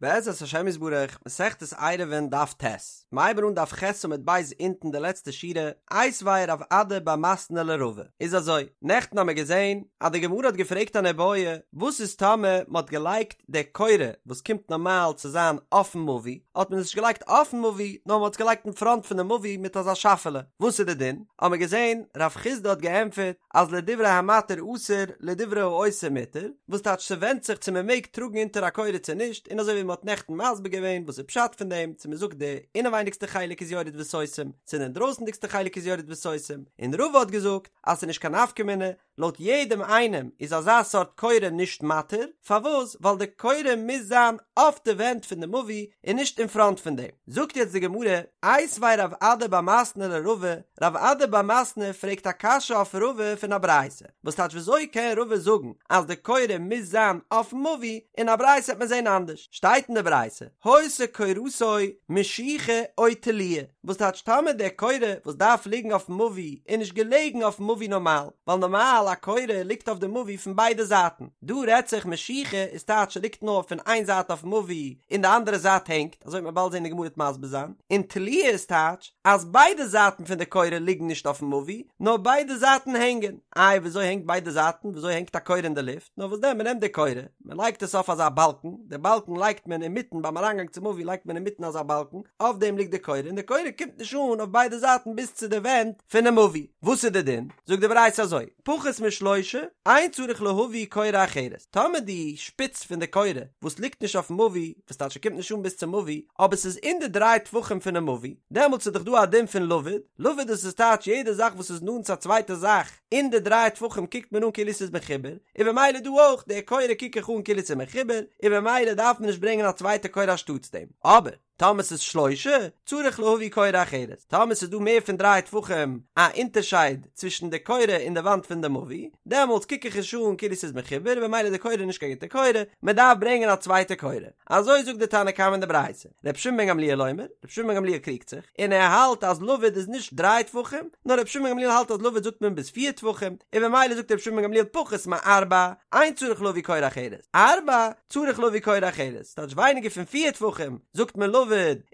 בעזרת השם יתברך, מסכת עירובין דף ט', מ'הייבן אן דף ח' עמוד ב' אונטן די לעצטע שורה, איתיביה רב אדא בר מתנה לרבא, איז אזוי, נעכטן האמיר געזען אז די גמרא האט געפרעגט אן איבעיא, וואס איז טאמער מ'האט געלייגט די קורה וואס קומט נארמאל צו זיין אויפן מבוי, האט מען עס נישט געלייגט אויפן מבוי, נאר מ'האט עס געלייגט אין פראנט פון די מבוי מיט אזא שאפעלע, וואס איז די דין? האמיר געזען רב חסדא האט געענטפערט, אז לדברי המתיר אסור לדברי האוסר מותר, וואס טייטש ס'ווענדט זיך צו מ'מעג טראגן אונטער א קורה צו נישט, און אזוי ווי מ'האט נעכטן מסביר געווען וואס איז פשט פון דעם, צו מ'זאגט די אינעווייניגסטע חלק איז יורד וסותם, צו די אינדרויסנדיגסטע חלק איז יורד וסותם, און רבא האט געזאגט אז ס'איז נישט קיין נפקא מינה, לויט יעדעם איינעם איז אזא סארט קורה נישט מתיר, פארוואס? ווייל די קורה מוז זיין אויף די ווענט פון די מבוי און נישט אין פראנט פון דעם. זאגט יעצט די גמרא, איתיביה רב אדא בר מתנה לרבא, רב אדא בר מתנה פרעגט א קשיא אויף רבא פון א ברייתא, וואס טייטש וויאזוי קען רבא זאגן אז די קורה מוז זיין אויפן מבוי, אין א ברייתא וועט מען זען אנדערש, שטייט אין די ברייתא, היתה קורתו משוחה או תלויה, וואס טייטש טאמער די קורה וואס דארף ליגן אויפן מבוי איז נישט געלעגן אויפן מבוי נארמאל, ווייל נארמאל א קורה ליגט אויף די מבוי פון ביידע זייטן, דא רעדט זיך משוחה איז טייטש ס'ליגט נאר פון איין זייט אויפן מבוי און די אנדערע זייט הענגט, אזוי וועט מען באלד זען די גמרא וועט מסביר זיין, און תלויה איז טייטש אז ביידע זייטן פון די קורה ליגן נישט אויפן מבוי, נאר ביידע זייטן הענגען. איי וויאזוי הענגט ביידע זייטן? וויאזוי הענגט א קורה אין די לופט? נאר וואס דען, מ'נעמט די קורה, מ'לייגט עס אויף אזא באלקן, די באלקן לייגט מען אינמיטן ביים אריינגאנג צום מבוי לייגט מען אינמיטן אזא באלקן, אויף דעם ליגט די קורה, און די קורה קומט נישט אן אויף ביידע זייטן ביז צו די ווענט פונעם מבוי. וואס איז די דין? זאגט די ברייתא אזוי, פחות משלושה, אין צריך להביא קורה אחרת, טאמער די שפיץ פון די קורה וואס ליגט נישט אויפן מבוי, וואס טייטש ס'קומט נישט אן ביז צום מבוי, אבער ס'איז אין די דריי טפחים פונעם מבוי, דעמאלטס איז דאך דא א דין פון לבוד, לבוד דאס איז טייטש יעדע זאך וואס איז נאנט צו א צווייטע זאך אין די דריי טפחים קוקט מען אן כאילו ס'איז מחובר, און במילא דא אויך, די קורה קוק איך אן כאילו ס'איז מחובר, און במילא דארף מען נישט ברענגען א צווייטע קורה אנשטאטס דעם, אבער. טאמער ס'איז שלושה, צריך להביא קורה אחרת, טאמער ס'איז דא מער פון דריי טפחים א אונטערשייד צווישן די קורה און די וואנט פון די מבוי, דעמאלטס קוק איך עס אן כאילו ס'איז מחובר און במילא די קורה איז נישט קיין גוטע קורה, מ'דארף ברענגען א צווייטע קורה. אזוי זאגט די תנא קמא אין די ברייתא. ר' שמעון בן גמליאל אומר, ר' שמעון בן גמליאל קריגט זיך, און ער האלט אז לבוד איז נישט דריי טפחים, נאר ר' שמעון בן גמליאל האלט אז לבוד זאגט מען ביז פיר טפחים, און במילא זאגט ר' שמעון בן גמליאל פחות מארבע, אין צריך להביא קורה אחרת, ארבע, צריך להביא קורה אחרת, ס'טייטש ווייניגער פון פיר טפחים, זאגט מען לבוד,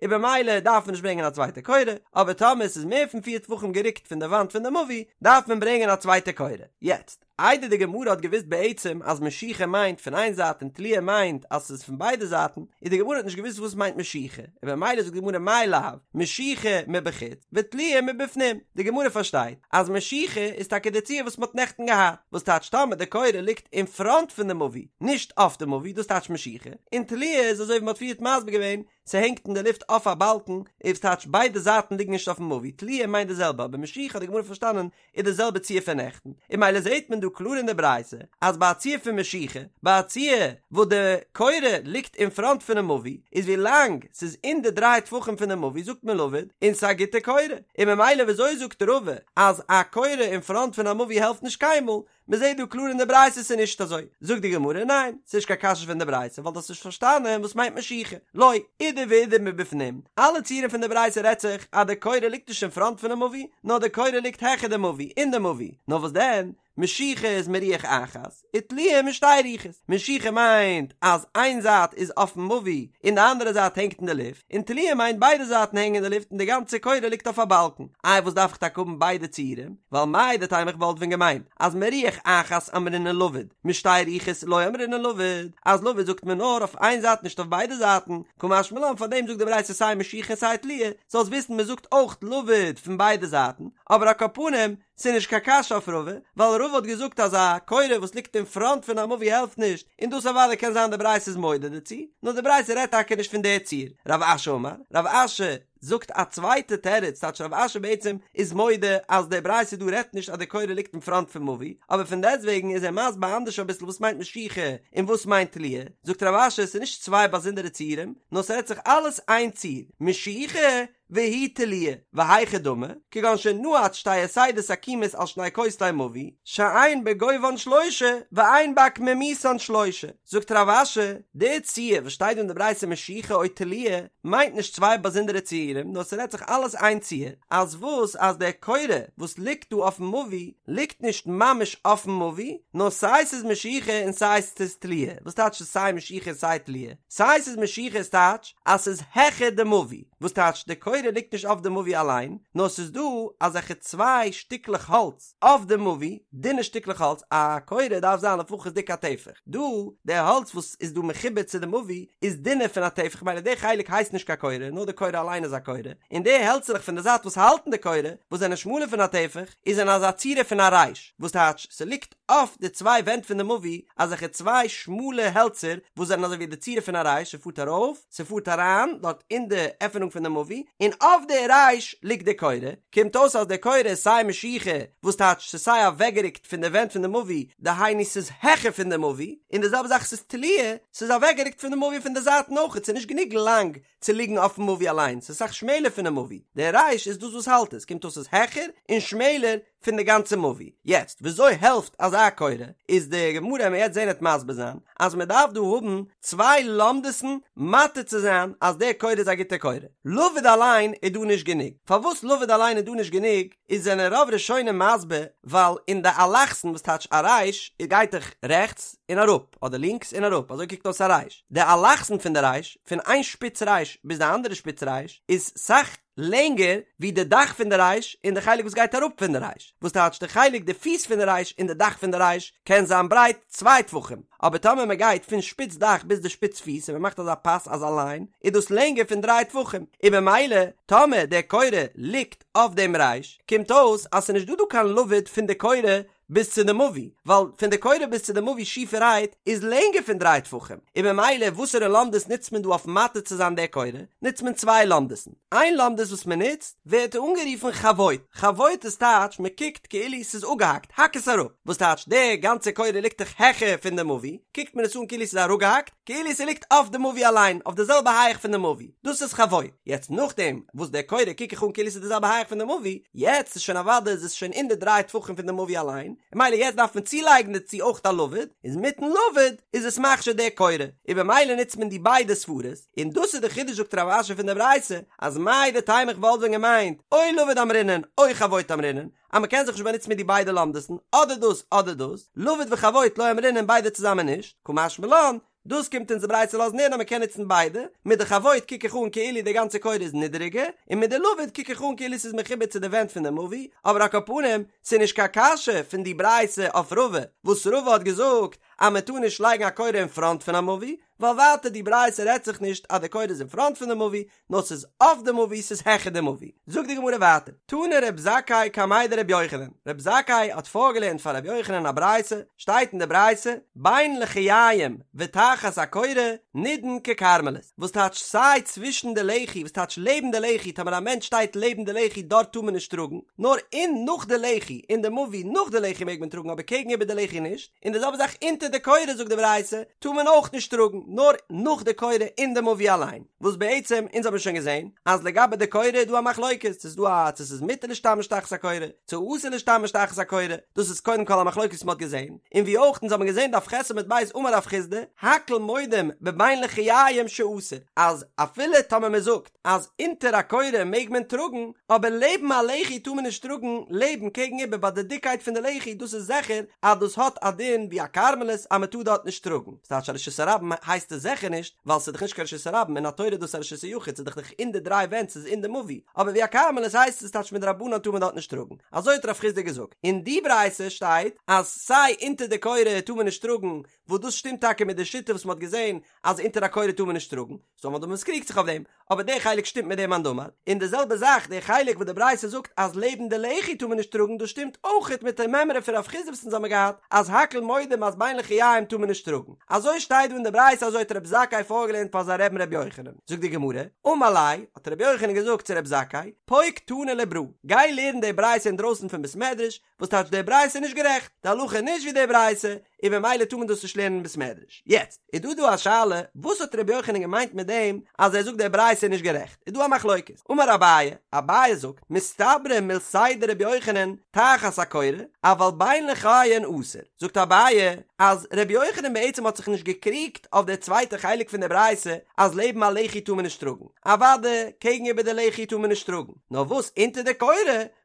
און במילא דארף מען נישט ברענגען א צווייטע קורה, אבער טאמער ס'איז מער פון פיר טפחים גערוקט פון די וואנט פון די מבוי, דארף מען ברענגען א צווייטע קורה. יעצט, איידער די גמרא האט געוואוסט בעצם אז משוחה מיינט פון איין זייט און תלויה מיינט אז ס'איז פון ביידע זייטן, איז די גמרא האט נישט געוואוסט וואס מיינט משוחה, און במילא זאגט די גמרא מאי לאו, משוחה מבחוץ, ותלויה מבפנים, די גמרא פארשטייט אז משוחה איז טאקע די ציור וואס מ'האט נעכטן געהאט, וואס טייטש טאמער די קורה ליגט אין פראנט פון די מבוי, נישט אויף די מבוי, דאס טייטש משוחה, און תלויה איז אזוי ווי מ'האט פריערט מסביר געווען, ס'הענגט אין די לופט אויף א באלקן, איז טייטש ביידע זייטן ליגן נישט אויפן מבוי, תלויה מיינט די זעלבע, אבער משוחה האט די גמרא פארשטאנען איז די זעלבע ציור פון נעכטן, און ממילא זעט מען דא קלאר אין די ברייתא אז ביי א ציור פון משוחה, ביי א ציור וואס די קורה ליגט אין פראנט פונעם מבוי, איז ווי לאנג ס'איז אין די דריי טפחים פונעם מבוי זאגט מען לבוד, און ס'איז א גוטע קורה, און ממילא וויאזוי זאגט רבא אז א קורה אין פראנט פון א מבוי העלפט נישט קיינמאל, מען זעט דא קלאר אין די ברייתא ס'איז נישט אזוי, זאגט די גמרא ניין, ס'איז נישט קיין קשיא פון די ברייתא ווייל דו האסט נישט פארשטאנען וואס מיינט משוחה, לא, אידי ואידי מבפנים, אלע ציורים פון די ברייתא רעדט זיך אז די קורה ליגט נישט אין פראנט פונעם מבוי, נאר די קורה ליגט העכער די מבוי, אין די מבוי, נאר וואס דען, משוחה איז מרוח אחת, ותלויה משתי רוחות, משוחה מיינט אז איין זייט איז אויפן מבוי און די אנדערע זייט הענגט אין די לופט, און תלויה מיינט ביידע זייטן הענגען אין די לופט און די גאנצע קורה ליגט אויף א באלקן, איי וואס דארף איך טאקע האבן ביידע ציורים? ווייל מהו דתימא איך וואלט ווען געמיינט אז מרוח אחת אמרינן לבוד, משתי רוחות לא אמרינן לבוד, אז לבוד זאגט מען נאר אויף איין זייט נישט אויף ביידע זייטן, קא משמע לן פאר דעם זאגט די ברייתא סיי משוחה און סיי תלויה, זאלסט וויסן מען זאגט אויך לבוד פון ביידע זייטן, אבער על כל פנים ס'איז נישט קיין קשיא אויף רבא, ווייל רבא האט געזאגט אז א קורה וואס ליגט אין פראנט פון א מבוי העלפט נישט, און דאס אוודאי קען זיין די ברייתא איז מודה דערצו, נאר די ברייתא רעדט טאקע נישט פון די ציור. רב אשי אמר, רב אשי זאגט א צווייטע תירוץ, טייטש רב אשי בעצם איז מודה אז די ברייתא דא רעדט נישט אז די קורה ליגט אין פראנט פון מבוי, אבער פון דעסטוועגן איז ער מסביר אנדערש אביסל וואס מיינט משוחה און וואס מיינט תלויה, זאגט רב אשי ס'איז נישט צוויי באזונדערע ציורים, נאר ס'רעדט זיך אלעס איין ציור, משוחה. והיא תלויה, והיכי דמי, כגון שנעץ שתי יתדות עקומות על שני כותלי מבוי, שאין בגובהן שלושה ואין בעקמומיתן שלושה. זאגט רב אשי, די ציור וואס שטייט דא אין די ברייתא משוחה או תלויה, מיינט נישט צוויי באזונדערע ציורים, נאר ס'רעדט זיך אלעס איין ציור, אז וואס אז די קורה וואס ליגט דא אויפן מבוי, ליגט נישט ממש אויפן מבוי, נאר סיי ס'איז משוחה און סיי ס'איז תלויה, וואס טייטש ס'איז סיי משוחה און סיי תלויה? סיי ס'איז משוחה איז טייטש אז ס'איז העכער די מבוי, וואס טייטש די קורה ליגט נישט אויף די מבוי אליין, נאר ס'איז דא אזעלכע צוויי שטיקלעך האלץ אויף די מבוי, דינע שטיקלעך האלץ, א קורה דארף זיין לפחות דיק א טפח, דא די האלץ וואס איז דא מחובר צו די מבוי איז דינער פון א טפח ממילא די חלק הייסט נישט קיין קורה נאר די קורה אליין איז א קורה, און די העלצערלעך פון די זייט וואס האלטן די קורה וואס זענען שמאלער פון א טפח איז אין אזא צורה פון א רייש, וואס טייטש ס'ליגט אויף די צוויי ווענט פון די מבוי אזעלכע צוויי שמאלע העלצער וואס זענען אזוי ווי די צורה פון א רייש, ס'פארט ארויף, ס'פארט אריין דארט אין די עפענונג פון די מבוי, און אויף די רייש ליגט די קורה, קומט אויס אז די קורה איז סיי משוחה, וואס טייטש ס'איז סיי אוועקגערוקט פון די ווענט פון די מבוי, דהיינו ס'איז העכער פון די מבוי, און די זעלבע זאך ס'איז תלויה, ס'איז אוועקגערוקט פון די מבוי פון די זייטן אויכעט, ס'איז נישט גענוג לאנג צו ליגן אויפן מבוי אליין, ס'איז אסאך שמעלער פונעם מבוי, די רייש איז דאס וואס האלט עס, קומט אויס ס'איז העכער און שמעלער פון די גאנצע מבוי. יעצט וויאזוי העלפט אזא קורה? איז די גמרא וועלן מיר יעצט זעהן וועט מסביר זיין אז מען דארף דא האבן צוויי לומדות'ן מתיר צו זיין אז די קורה איז א גוטע קורה. לבוד אליין איז דא נישט גענוג. פארוואס לבוד אליין איז דא נישט גענוג איז זענען רוב ראשונים מסביר ווייל אין די אלכסון וואס טייטש א רייש גייט דאך רעכטס און אראפ אדער לינקס און אראפ אזוי קוקט אויס א רייש. די אלכסון פון די רייש פון איין שפיץ רייש ביז די אנדערע שפיץ רייש איז סאך לענגער ווי די דאך פון די רייש און די חלק וואס גייט אראפ פון די רייש, וואס טייטש די חלק די פיס פון די רייש און די דאך פון די רייש קען זיין ברייט צוויי טפחים, אבער טאמער מען גייט פון שפיץ דאך ביז די שפיץ פיס און מען מאכט אזא פאס אזא ליין איז דאס לענגער פון דריי טפחים, און במילא טאמער די קורה ליגט אויף דעם רייש קומט אויס אז ס'איז נישט דא דא קיין לבוד פון די קורה ביז צו די מבוי, ווייל פון די קורה ביז צו די מבוי שיפערהייט איז לענגער פון דריי טפחים, און במילא וואסערע לומדות נוצט מען דא אויף מתיר צו זיין די קורה, נוצט מען צוויי לומדות'ן, איין לומדות וואס מען נוצט ווערט אנגערופן חבוט, חבוט איז טייטש מען קוקט כאילו ס'איז אפגעהאקט, האק עס אראפ, וואס טייטש די גאנצע קורה ליגט דאך העכער פון די מבוי, קוקט מען עס אן כאילו ס'איז אראפגעהאקט, כאילו ס'ליגט אויף די מבוי אליין, אויף די זעלבע הייך פון די מבוי, דאס איז חבוט, יעצט נאכדעם וואס די קורה קוק איך אן כאילו ס'איז די זעלבע הייך פון די מבוי, יעצט איז שוין אוודאי איז עס שוין אין די דריי טפחים פון די מבוי אליין, און במילא יעצט דארף מען צולייגן דערצו אויך א לבוד, איז מיטן לבוד איז עס מכשיר די קורה, און במילא נוצט מען די ביידע סברות, און דאס איז די חידוש זאגט רב אשי פון די ברייתא, אז מהו דתימא כ'וואלט ווען געמיינט או לבוד אמרינן או חבוט אמרינן, אז מ'קען זיך נישט באנוצן מיט די ביידע לומדות'ן, אדער דאס אדער דאס, לבוד וחבוט לא אמרינן ביידע צוזאמען נישט, קא משמע לן, דאס קומט אונז די ברייתא לאזן הערן אז מ'קען נוצן ביידע, מיט די חבוט קוק איך אן כאילו די גאנצע קורה איז נידעריגער, און מיט די לבוד קוק איך אן כאילו ס'איז מחובר צו די ווענט פון די מבוי, אבער על כל פנים, ס'איז נישט קיין קשיא פון די ברייתא אויף רבא, וואס רבא האט געזאגט אז מ'טאר נישט לייגן א קורה אין פראנט פון א מבוי, ווייל ווייטער די ברייתא רעדט זיך נישט אז די קורה איז אין פראנט פון די מבוי, נאר ס'איז אויף די מבוי, ס'איז העכער די מבוי. זאגט די גמרא ווייטער, תנא רב זכאי קמיה דרבי יוחנן, רב זכאי האט פארגעלערנט פאר רבי יוחנן א ברייתא, שטייט אין די ברייתא, בין לחיים ותחת הקורה נידון ככרמלית, וואס טייטש סיי צווישן די לחי, וואס טייטש לעבן די לחי, טאמער א מענטש שטייט לעבן די לחי דארט טאר מען נישט טראגן, נאר אין נאך די לחי, אין די מבוי נאך די לחי מעג מען טראגן אבער קעגן איבער די לחי נישט, און די זעלבע זאך אונטער די קורה זאגט די ברייתא, טאר מען אויך נישט טראגן, נאר נאך די קורה אין די מבוי אליין. וואס בעצם אונז האבן שוין געזען אז לגבי די קורה איז דא א מחלוקת, ס'איז דא א צו ס'איז מותר להשתמש תחת הקורה, צו אסור להשתמש תחת הקורה, דאס איז קודם כל א מחלוקת וואס מ'האט געזען, און ווי אויך אונז האבן געזען דף ח' עמוד ב' אמר רב חסדא, הכל מודים בבין לחיים שאסור, אז אפילו טאמער מ'זאגט אז אונטער א קורה מעג מען טראגן, אבער לעבן א לחי טאר מען נישט טראגן, לעבן קעגן איבער ביי די דיקקייט פון די לחי, דאס איז זיכער אז דאס האט א דין ווי א כרמלית אז מ'טאר דארט נישט טראגן. ס'טייטש א רשות הרבים הייסט עס זיכער נישט, ווייל ס'איז דאך נישט קיין רשות הרבים, מן התורה איז דאס א רשות היחיד, ס'איז דאך דאך אין די דריי ווענט, ס'איז אין די מבוי, אבער ווי א כרמלית הייסט עס טייטש מדרבנן טאר מען דארט נישט טראגן, אזוי האט רב חסדא געזאגט. אין די ברייתא שטייט אז סיי אונטער די קורה טאר מען נישט טראגן, וואס דאס שטימט טאקע מיט די שיטה וואס מ'האט געזען אז אונטער א קורה טאר מען נישט טראגן, ס'דא א מאן דאמר וואס קריגט זיך אויף דעם, אבער דער חלק שטימט מיט דעם מאן דאמר, און די זעלבע זאך דער חלק וואס די ברייתא זאגט אז לעבן די לחי טאר מען נישט טראגן דאס שטימט אויכעט מיט די מימרא פון רב חסדא וואס אונז האבן געהאט אז הכל מודים אז בין לחיים טאר מען נישט טראגן, אזוי שטייט דא אין די ברייתא אזוי האט רב זכאי פארגעלערנט פאר זיין רבי'ן רבי יוחנן, זאגט די גמרא, אמר ליה, האט רבי יוחנן געזאגט צו רב זכאי, פוק תני לברא, גיי לערן די ברייתא אינדרויסן פון בית מדרש, וואס טייטש די ברייתא איז נישט גערעכט, די הלכה איז נישט ווי די ברייתא, און במילא טאר מען דאס נישט לערנען אין בית מדרש. יעצט, איז דא דא א שאלה, וואס האט רבי יוחנן געמיינט מיט דעם אז ער זאגט די ברייתא איז נישט גערעכט? איז דא א מחלוקת. אמר אביי, אביי זאגט, מסתברא מילתיה דרבי יוחנן תחת הקורה, אבל בין לחייין אסור. זאגט אביי, אז רבי יוחנן בעצם האט זיך נישט געקריגט אויף די צווייטע חלק פון די ברייתא אז לעבן א לחי טאר מען נישט טראגן. אוודאי, קעגן איבער די לחי טאר מען נישט טראגן. נאר וואס אונטער די קורה,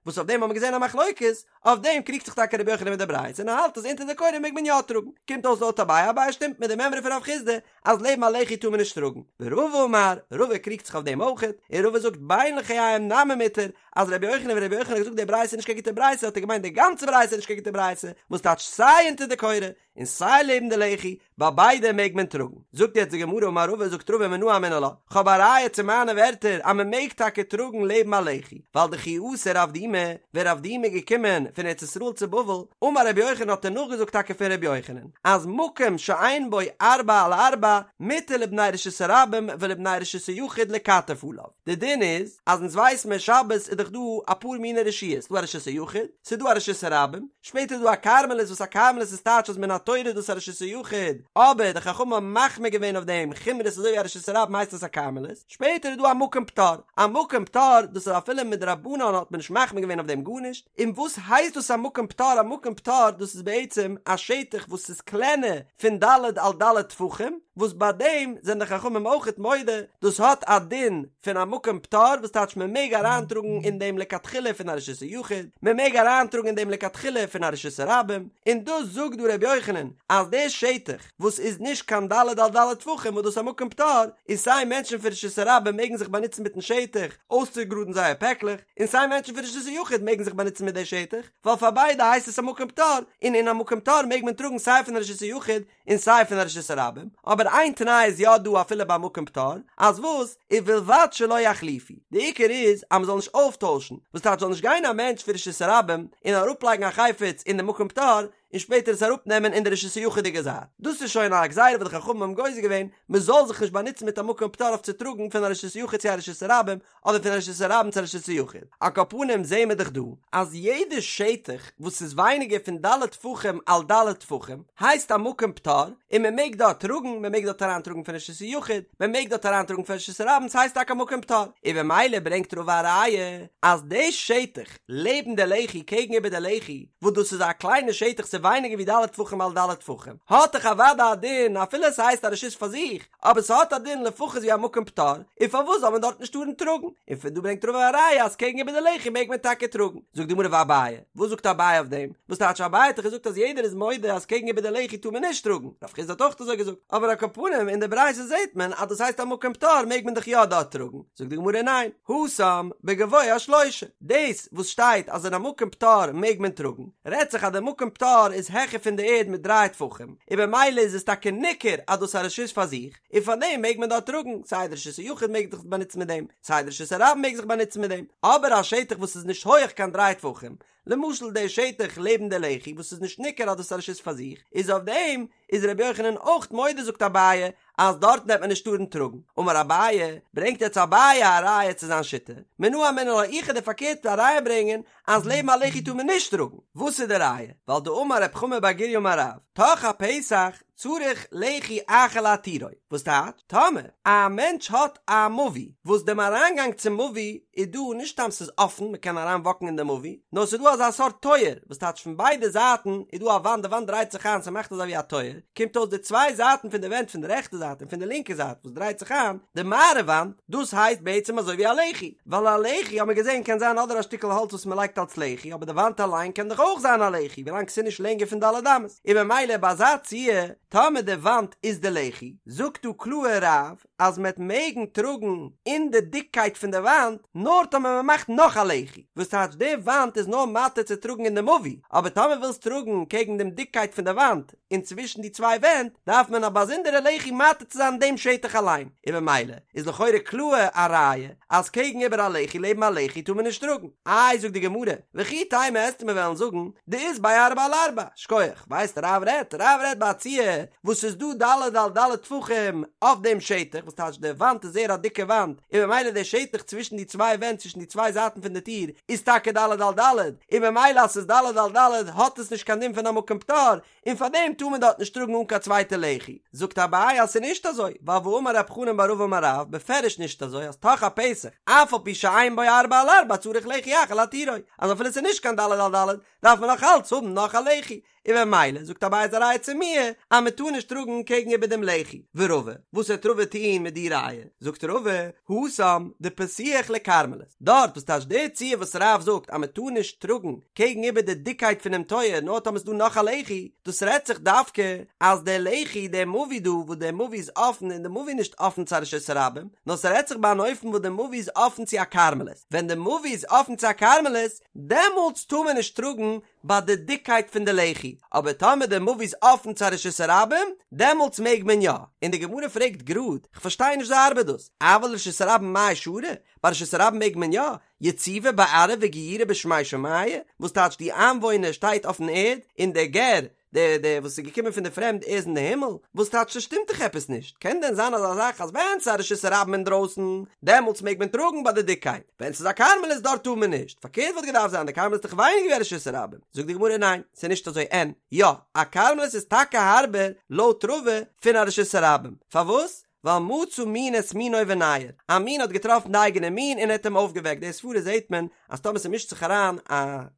וואס אויף דעם האבן מיר געזען א מחלוקת, אויף דעם קריגט זיך טאקע רבי יוחנן מיט די ברייתא און ער האלט אז אונטער די קורה מעג מען יא טראגן. קומט אויס לויט אביי, אביי שטימט מיט די מימרא פון רב חסדא אז לעבן א לחי טאר מען נישט טראגן. ורבא אמר, רבא קריגט זיך אויף דעם אויכעט, און רבא זאגט בין לחיים נמי מותר, אז רבי יוחנן ווען רבי יוחנן האט געזאגט די ברייתא איז נישט קיין גוטע ברייתא האט ער געמיינט די גאנצע ברייתא איז נישט קיין גוטע ברייתא, וואס טייטש סיי אונטער די קורה און סיי לעבן די לחי, ביי ביידע מעג מען טראגן. זאגט יעצט די גמרא אמר רבא זאגט רבא מנא אמינא לה, כ'האב א ראיה צו מיינע ווערטער אז מען מעג טאקע טראגן לעבן א לחי, ווייל דכי אתא רב דימי, ווען רב דימי איז געקומען פון ארץ ישראל צו בבל, אמר רבי יוחנן האט ער נאכגעזאגט טאקע פון רבי יוחנן, אז מקום שאין בו ארבעה על ארבעה מותר לבני רשות הרבים ולבני רשות היחיד לכתף עליו. די דין איז אז אונז ווייס מיר שבת איז דאך דא אפאר מיני רשויות, ס'דא א רשות היחיד, ס'איז דא א רשות הרבים, שפעטער איז דא א כרמלית וואס א כרמלית איז טייטש אז מן התורה איז דאס א רשות היחיד, אבער די חכמים האבן מחמיר געווען אויף דעם חומרות אזוי ווי א רשות הרבים הייסט עס א כרמלית, שפעטער איז דא א מקום פטור, א מקום פטור דאס איז אפילו מדרבנן האט מען נישט מחמיר געווען אויף דעם גארנישט, און וואס הייסט דאס א מקום פטור, א מקום פטור דאס איז בעצם א שטח וואס איז קלענער פון ד' על ד' טפחים, וואס ביי דעם זענען די חכמים אויכעט מודה, דאס האט א דין פון א מקום פטור, וואס טייטש מען מעג אריינטראגן אין דעם לכתחילה פון א רשות היחיד, מען מעג אריינטראגן אין דעם לכתחילה פון א רשות הרבים, און דאס זאגט דא ר' יוחנן אז דער שטח וואס איז נישט קיין ד' על ד' טפחים וואס דאס איז א מקום פטור, איז סיי מענטשן פון רשות הרבים מעגן זיך באנוצן מיטן שטח אויסצוגראדן זייער פעקלעך, און סיי מענטשן פון רשות היחיד מעגן זיך באנוצן מיט די שטח, ווייל פאר ביידע הייסט עס א מקום פטור, און אין א מקום פטור מעג מען טראגן סיי פון רשות היחיד און סיי פון רשות הרבים, אבער איין תנאי איז יא דא אפילו ביי מקום פטור, אז וואס, ובלבד שלא יחליפו, די עיקר איז אז מען זאל נישט אויפטוישן, וואס טייטש זאל נישט גיין א מענטש פון רשות הרבים און אראפלייגן א חפץ אין די מקום פטור, און שפעטער עס אראפנעמען אין די רשות היחיד'יגע זייט, דאס איז שוין א גזירה וואס די חכמים האבן גוזר געווען, מען זאל זיך נישט באנוצן מיט א מקום פטור אויף צו טראגן פון א רשות היחיד צו א רשות הרבים, אדער פון א רשות הרבים צו א רשות היחיד. על כל פנים זעהן מיר דאך דא אז יעדע שטח וואס איז ווייניגער פון ד' טפחים על ד' טפחים הייסט א מקום פטור, און מען מעג דארט טראגן, מען מעג דארט אריין טראגן פון רשות היחיד, מען מעג דארט אריין טראגן פון רשות הרבים, ס'הייסט טאקע א מקום פטור. און במילא ברענגט רבא א ראיה אז די שטח לעבן די לחי קעגן איבער די לחי, וואס דאס איז א קליינע שטח ס'איז ווייניגער ווי ד' טפחים על ד' טפחים, האט דאך אוודאי א דין אפילו עס הייסט א רשות פאר זיך, אבער ס'האט א דין לפחות ווי א מקום פטור, און פארוואס זאל מען דארט נישט טארן טראגן? און פון דא ברענגט רבא א ראיה אז קעגן איבער די לחי מעג מען טאקע טראגן. זאגט די גמרא ואביי, וואס זאגט אביי אויף דעם? וואס טייטש אביי האט דאך געזאגט אז יעדער איז מודה אז קעגן איבער די לחי טאר מען נישט טראגן, רב חסדא האט אויך אזוי געזאגט, אבער על כל פנים אין די ברייתא זעט מען אז דאס הייסט א מקום פטור מעג מען דאך יא דארט טראגן, זאגט די גמרא ניין, התם בגבוה שלושה, דאס וואס שטייט אז אין א מקום פטור מעג מען טראגן, רעדט זיך אז די מקום פטור איז העכער פון די ערד מיט דריי טפחים, און במילא איז עס טאקע ניכר אז דאס איז א רשות פאר זיך, און פאר דעם מעג מען דארט טראגן, סיי די רשות היחיד מעג זיך באנוצן מיט דעם, סיי די רשות הרבים מעג זיך באנוצן מיט דעם, אבער א שטח וואס איז נישט הויעך קיין דריי טפחים, למשל דער שטח לעבן די לחי וואס איז נישט ניכר אז דאס איז א רשות פאר זיך, איז אויף דעם איז רבי יוחנן אויך מודה זאגט אביי אז דארטן וועט מען נישט טארן טראגן, אמר אביי, ברענגט יעצט אביי א ראיה צו זיין שיטה, מנא אמינא לה איך וועל דיר פארקערט א ראיה ברענגען אז לעבן א לחי טאר מען נישט טראגן, וואס איז די ראיה? ווייל דאמר רב חמא בר גוריא אמר רב, תוך הפתח צריך לחי אחר להתירו, וואס טייטש? טאמער א מענטש האט א מבוי וואס דעם אריינגאנג צום מבוי איז דא נישט סתם ס'איז אפן מ'קען אריין וואקן אין די מבוי, נאר ס'איז דא אזא סארט טויער, וואס טייטש פון ביידע זייטן איז דא א וואנט די וואנט דרייט זיך איין ס'מאכט אזא ווי א טויער, קומט אויס די צוויי זייטן פון די ווענט פון די רעכטע זייט און פון די לינקע זייט וואס דרייט זיך איין, די מערב וואנט, דאס הייסט בעצם אזוי ווי א לחי, ווייל א לחי האט מען געזען קען זיין אדער א שטיקל האלץ וואס מ'לייגט אלס לחי אבער די וואנט אליין קען דאך אויך זיין א לחי ווילאנג ס'איז נישט לענגער פון ד' אמות, און במילא ביי אזא ציור טאמער די וואנט איז די לחי, זאגט דא קלאהר רב אז מ'עט מעגן טראגן אין די דיקקייט פון די וואנט נאר טאמער מ'מאכט נאך א לחי, וואס טייטש די וואנט איז נאר מתיר צו טראגן אין די מבוי, אבער טאמער ווילסט טראגן קעגן דעם דיקקייט פון די וואנט אין צווישן די צוויי ווענט דארף מען א באזונדערע לחי מתיר צו זיין דעם שטח אליין, און במילא איז לכאורה קלאהר א ראיה אז קעגן איבער א לחי לעבן א לחי טאר מען נישט טראגן. איי זאגט די גמרא, וכי תימא עסטו מיר וועלן זאגן דאית ביה ארבעה על ארבעה, שכוח, ווייסט רב רעדט, רב רעדט ביי א ציור וואס ס'איז דא ד' על ד' טפחים אויף דעם שטח. וואס טייטש די וואנט איז זייער א דיקע וואנט, און במילא די שטח צווישן די צוויי ווענט צווישן די צוויי זייטן פון די טיר איז טאקע ד' על ד', און במילא אז ס'איז ד' על ד' האט עס נישט קיין דין פון א מקום פטור, און פארדעם טאר מען דארט נישט טראגן אן קיין צווייטע לחי. זאגט אביי אז ס'איז נישט אזוי, ווייל והאמר רב חנן בר רבא אמר רב, בפירוש נישט אזוי אז תוך הפתח, אף על פי שאין בו ארבעה על ארבעה צריך לחי אחר להתירו, אז אפילו ס'איז נישט קיין ד' על ד' דארף מען נאך אלץ האבן נאך א לחי, און במילא זאגט אביי איז א ראיה צו מיר אז מען טאר נישט טראגן קעגן איבער דעם לחי, ורבא, וואס וועט רבא טוהן מיט די ראיה? זאגט רבא, התם דפתיח לכרמלית, דארט וואס טייטש די ציור וואס רב זאגט אז מען טאר נישט טראגן קעגן איבער די דיקקייט פונעם טויער נאר טאמער ס'איז דא נאך א לחי, דאס רעדט זיך דווקא אז דער לחי, דער מבוי דא וואס דער מבוי איז אפן און די מבוי איז נישט אפן צו א רשות הרבים, נאר ס'רעדט זיך ביי אן אופן וואס די מבוי איז אפן צו א כרמלית, ווען די מבוי איז אפן צו א כרמלית, דעמאלטס טאר מען נישט טראגן ביי די דיקקייט פון די לחי, אבער טאמער די מבוי איז אפן צו א רשות הרבים, דעמאלטס מעג מען יא. און די גמרא פרעגט גראד, כ'פארשטיי נישט וויאזוי ארבעט דאס, אבל רשות הרבים מאי שרי? ביי רשות הרבים מעג מען יא? יציבי בארעא וגיורא בשמי שמיא? וואס טייטש די איינוואוינער שטייט אויפן ערד, און דער גר דער דער וואס איז געקומען פון די פרעמד ער איז אין די הימל? וואס טייטש ס'שטימט דאך עפעס נישט? קען דען זיין אזא זאך אז ווען ס'איז א רשות הרבים אינדרויסן דעמאלטס מעג מען טראגן ביי די דיקקייט, ווען ס'איז א כרמלית דארט טאר מען נישט? פארקערט וואלט געדארפט זיין די כרמלית איז דאך ווייניגער ווי א רשות הרבים. זאגט די גמרא ניין ס'איז נישט אזוי אין יא א כרמלית איז טאקע הארבער לויט רבא פון א רשות הרבים פארוואס? ווייל מצא מין את מינו וניעור, א מין האט געטראפן די אייגענע מין און ער האט אים אויפגעוועקט, די סברא זעהט מען אז טאמער ס'מישט זיך אריין א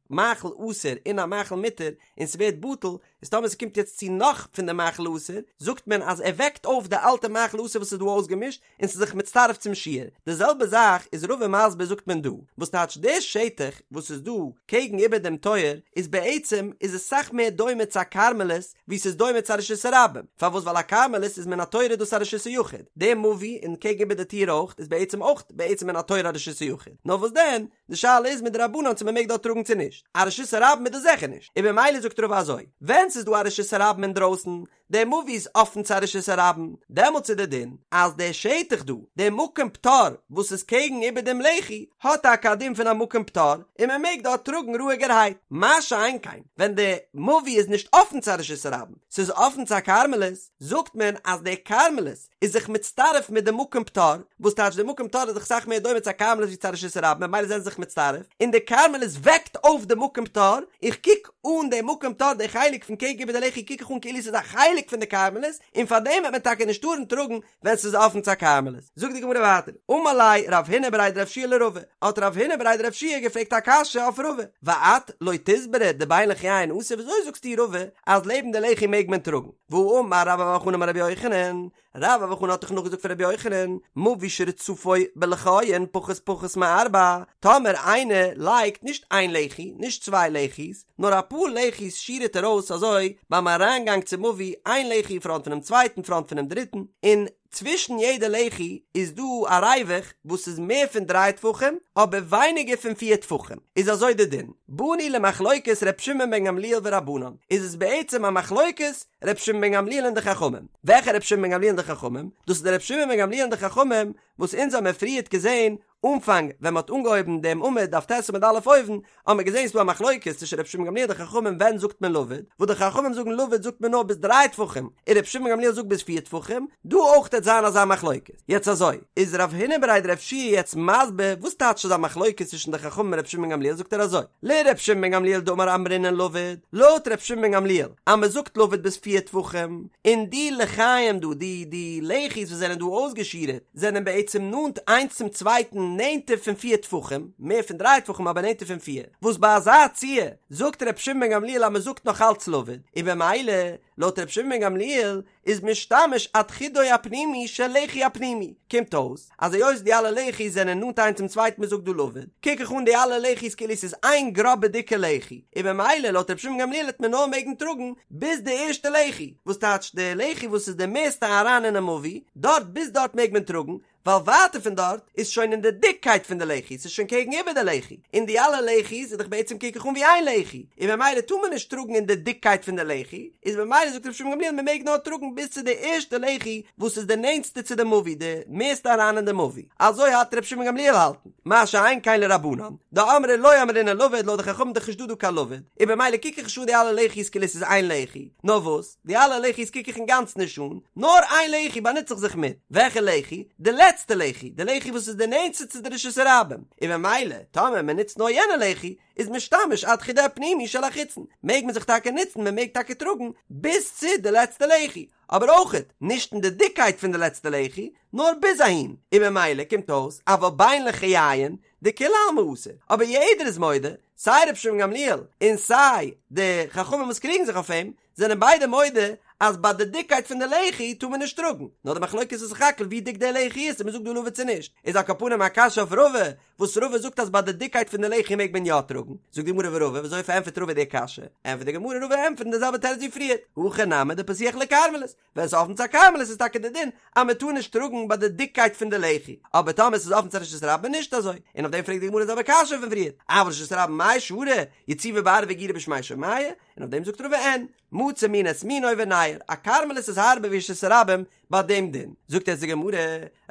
מאכל אסור אין א מאכל מותר און ס'ווערט בטל, איז טאמער ס'קומט יעצט צו נאך פון די מאכל אסור, זאגט מען אז ער וועקט אויף די אלטע מאכל אסור וואס איז דא אויסגעמישט און ס'איז זיך מצטרף צום שיעור. די זעלבע זאך איז רבא מסביר זאגט מען דא, וואס טייטש די שטח וואס איז דא קעגן איבער דעם טויער איז בעצם איז עס סאך מער דומה צו א כרמלית ווי ס'איז דומה צו א רשות הרבים, פארוואס ווייל א כרמלית איז מן התורה דאס א רשות היחיד, די מבוי און קעגן איבער די טיר אויך איז בעצם אויך בעצם מן התורה א רשות היחיד, נאר וואס דען, די שאלה איז מדרבנן צו מ'מעג דארט טראגן צו נישט, א רשות הרבים איז דאס זיכער נישט, און במילא זאגט רבא אזוי, ווען ס'איז דא א רשות הרבים אינדרויסן, די מבוי איז אפן צו א רשות הרבים, דעמאלטס איז די דין אז די שטח דא, די מקום פטור וואס איז קעגן איבער דעם לחי, האט טאקע א דין פון א מקום פטור, און מ'מעג דארט טראגן רואיגערהייט, מה שאין כן, ווען די מבוי איז נישט אפן צו א רשות הרבים, ס'איז אפן צו א כרמלית, זאגט מען אז די כרמלית איז זיך מצטרף מיט די מקום פטור, וואס טייטש די מקום פטור איז דאך אסאך מער דומה צו א כרמלית ווי צו א רשות הרבים ממילא זענען זיי זיך מצטרף, און די כרמלית וועקט אויף די מקום פטור, איך קוק אן די מקום פטור די חלק פון קעגן איבער די לחי קוק איך אן כאילו ס'איז א חלק פון די כרמלית, און פארדעם וועט מען טאקע נישט טארן טראגן ווען ס'איז אפן צו א כרמלית. זאגט די גמרא ווייטער, אמר ליה רב הונא בריה דרב יהושע לרבא, האט רב הונא בריה דרב יהושע געפרעגט א קשיא אויף רבא, ואת לא תסברא דבין לחיין אסור וויאזוי זאגסטו רבא אז לעבן די לחי מעג מען טראגן? והאמר רבה בר בר חנה אמר רבי יוחנן, רבה בר בר חנה האט דאך נאכגעזאגט פון רבי יוחנן, מבוי שרצפו בלחיים פחות פחות מארבע, טאמער איינער לייגט נישט איין לחי, נישט צוויי לחי'ס, נאר אפאר לחי'ס שירעט ער אויס אזוי ביים אריינגאנג צום מבוי, איין לחי פראנט פונעם צווייטן פראנט פונעם דריטן, און צווישן יעדע לחי איז דא א ריווח וואס איז מער פון דריי טפחים אבער ווייניגער פון פיר טפחים, איז אזוי די דין, באנו למחלוקת ר' שמעון בן גמליאל ורבנן, איז עס בעצם א מחלוקת ר' שמעון בן גמליאל און די חכמים, וועלכע ר' שמעון בן גמליאל און די חכמים? דאס איז די ר' שמעון בן גמליאל און די חכמים וואס אונז האמיר פריערט געזען אנפאנג ווען מ'האט אנגעהויבן דעם עמוד דף ט עמוד א' אויבן, האט מען געזען ס'דא א מחלוקת צווישן רבי שמעון גמליאל און די חכמים ווען זאגט מען לבוד, וואס די חכמים זאגן לבוד זאגט מען נאר ביז דריי טפחים, און רבי שמעון גמליאל זאגט ביז פיר טפחים, דא אויך וועט זיין אזא מחלוקת. יעצט אזוי, איז רב הונא בריה דרב יהושע יעצט מסביר וואס טייטש אזא מחלוקת צווישן די חכמים און רבי שמעון גמליאל זאגט ער אזוי, לרבי שמעון בן גמליאל דאמר אמרינן לבוד, לויט רבי שמעון בן גמליאל אז מ'זאגט לבוד ביז פיר טפחים, און די לחיים דא, די די לחי'ס וואס זענען דא אויסגעשירעט, זענען בעצם נאנט איינס צום צווייטן נענטער פון פיר טפחים, מער פון דריי טפחים אבער נענטער פון פיר, וואס ביי אזא ציור זאגט ר' שמעון בן גמליאל אז מען זאגט נאך אלץ לבוד, און במילא לויט ר' שמעון בן גמליאל איז משתמש עד חודו הפנימי של לחי הפנימי, קומט אויס אז היות די אלע לחי'ס זענען נאנט איינס צום צווייטן מען זאגט דא לבוד, קוק איך אן די אלע לחי'ס כאילו ס'איז איין גראבע דיקע לחי, און במילא לויט ר' שמעון בן גמליאל העט מען נאר מעגן טראגן ביז די ערשטע לחי, וואס טייטש די לחי וואס איז די מערסטע אריין אינעם מבוי, דארט ביז דארט מעג מען טראגן, ווייל ווייטער פון דארט איז שוין אין די דיקקייט פון די לחי, ס'איז שוין קעגן איבער די לחי, און די אלע לחי'ס איז דאך בעצם קוק איך אן ווי איין לחי, און במילא טאר מען נישט טראגן אין די דיקקייט פון די לחי, איז במילא זאגט ר' שמעון גמליאל מען מעג נאר טראגן ביז צו די ערשטע לחי וואס איז די נענטסטע צו די מבוי, די מערסטע אריין אין די מבוי, אזוי האט ר' שמעון גמליאל האלטן. מה שאין כן לרבנן, דאמרי לא אמרינן לבוד לויט די חכמים דאך נישט דא דא קיין לבוד, און במילא קוק איך נישט אן די אלע לחי'ס כאילו ס'איז איין לחי, נאר וואס, די אלע לחי'ס קוק איך אינגאנצן נישט אן, נאר איין לחי באנוץ איך זיך מיט, וועלכע לחי? די לעצטע לחי, די לחי וואס איז די נענטסטע צו די רשות הרבים, און במילא, טאמער מ'נוצט נאר יענע לחי, איז משתמש עד חודה הפנימי של החיצון, מעג מען זיך טאקע נוצן, מען מעג טאקע טראגן, ביז צו די לעצטע לחי, אבער אויכעט נישט אין די דיקקייט פון די לעצטע לחי, נאר ביז אהין, און ממילא קומט אויס אבל בין לחיין דכולי עלמא אסור, אבער יעדער איז מודה, סיי רבי שמעון גמליאל און סיי די חכמים וואס קריגן זיך אויף אים, זענען ביידע מודה אז ביי די דיקקייט פון די לחי טאר מען נישט טראגן, נאר די מחלוקת איז סך הכל ווי דיק די לחי איז צו מען זאגט דא לבוד צו נישט, איז על כל פנים א קשיא אויף רבא, וואס רבא זאגט אז ביי די דיקקייט פון די לחי מעג מען יא טראגן, זאגט די גמרא ורבא, ווי אזוי פארענטפערט רבא די קשיא? ענטפערט די גמרא רבא ענטפערט די זעלבע תירוץ ווי פריער, הכא נמי דפתיח לכרמלית, ווען ס'איז אפן צו א כרמלית איז טאקע די דין אז מען טאר נישט טראגן ביי די דיקקייט פון די לחי, אבער טאמער ס'איז אפן צו רשות הרבים נישט אזוי, און אויף דעם פרעגט די גמרא די זעלבע קשיא פון פריער, אבל רשות הרבים מאי שרי, יציבא בארעא וגירא בשמי שמיא, און אויף דעם זאגט רבא אין, מצי מין את מינו וניעור, א כרמלית איז הארבער ווי רשות הרבים ביי דעם דין. זאגט יעצט די גמרא,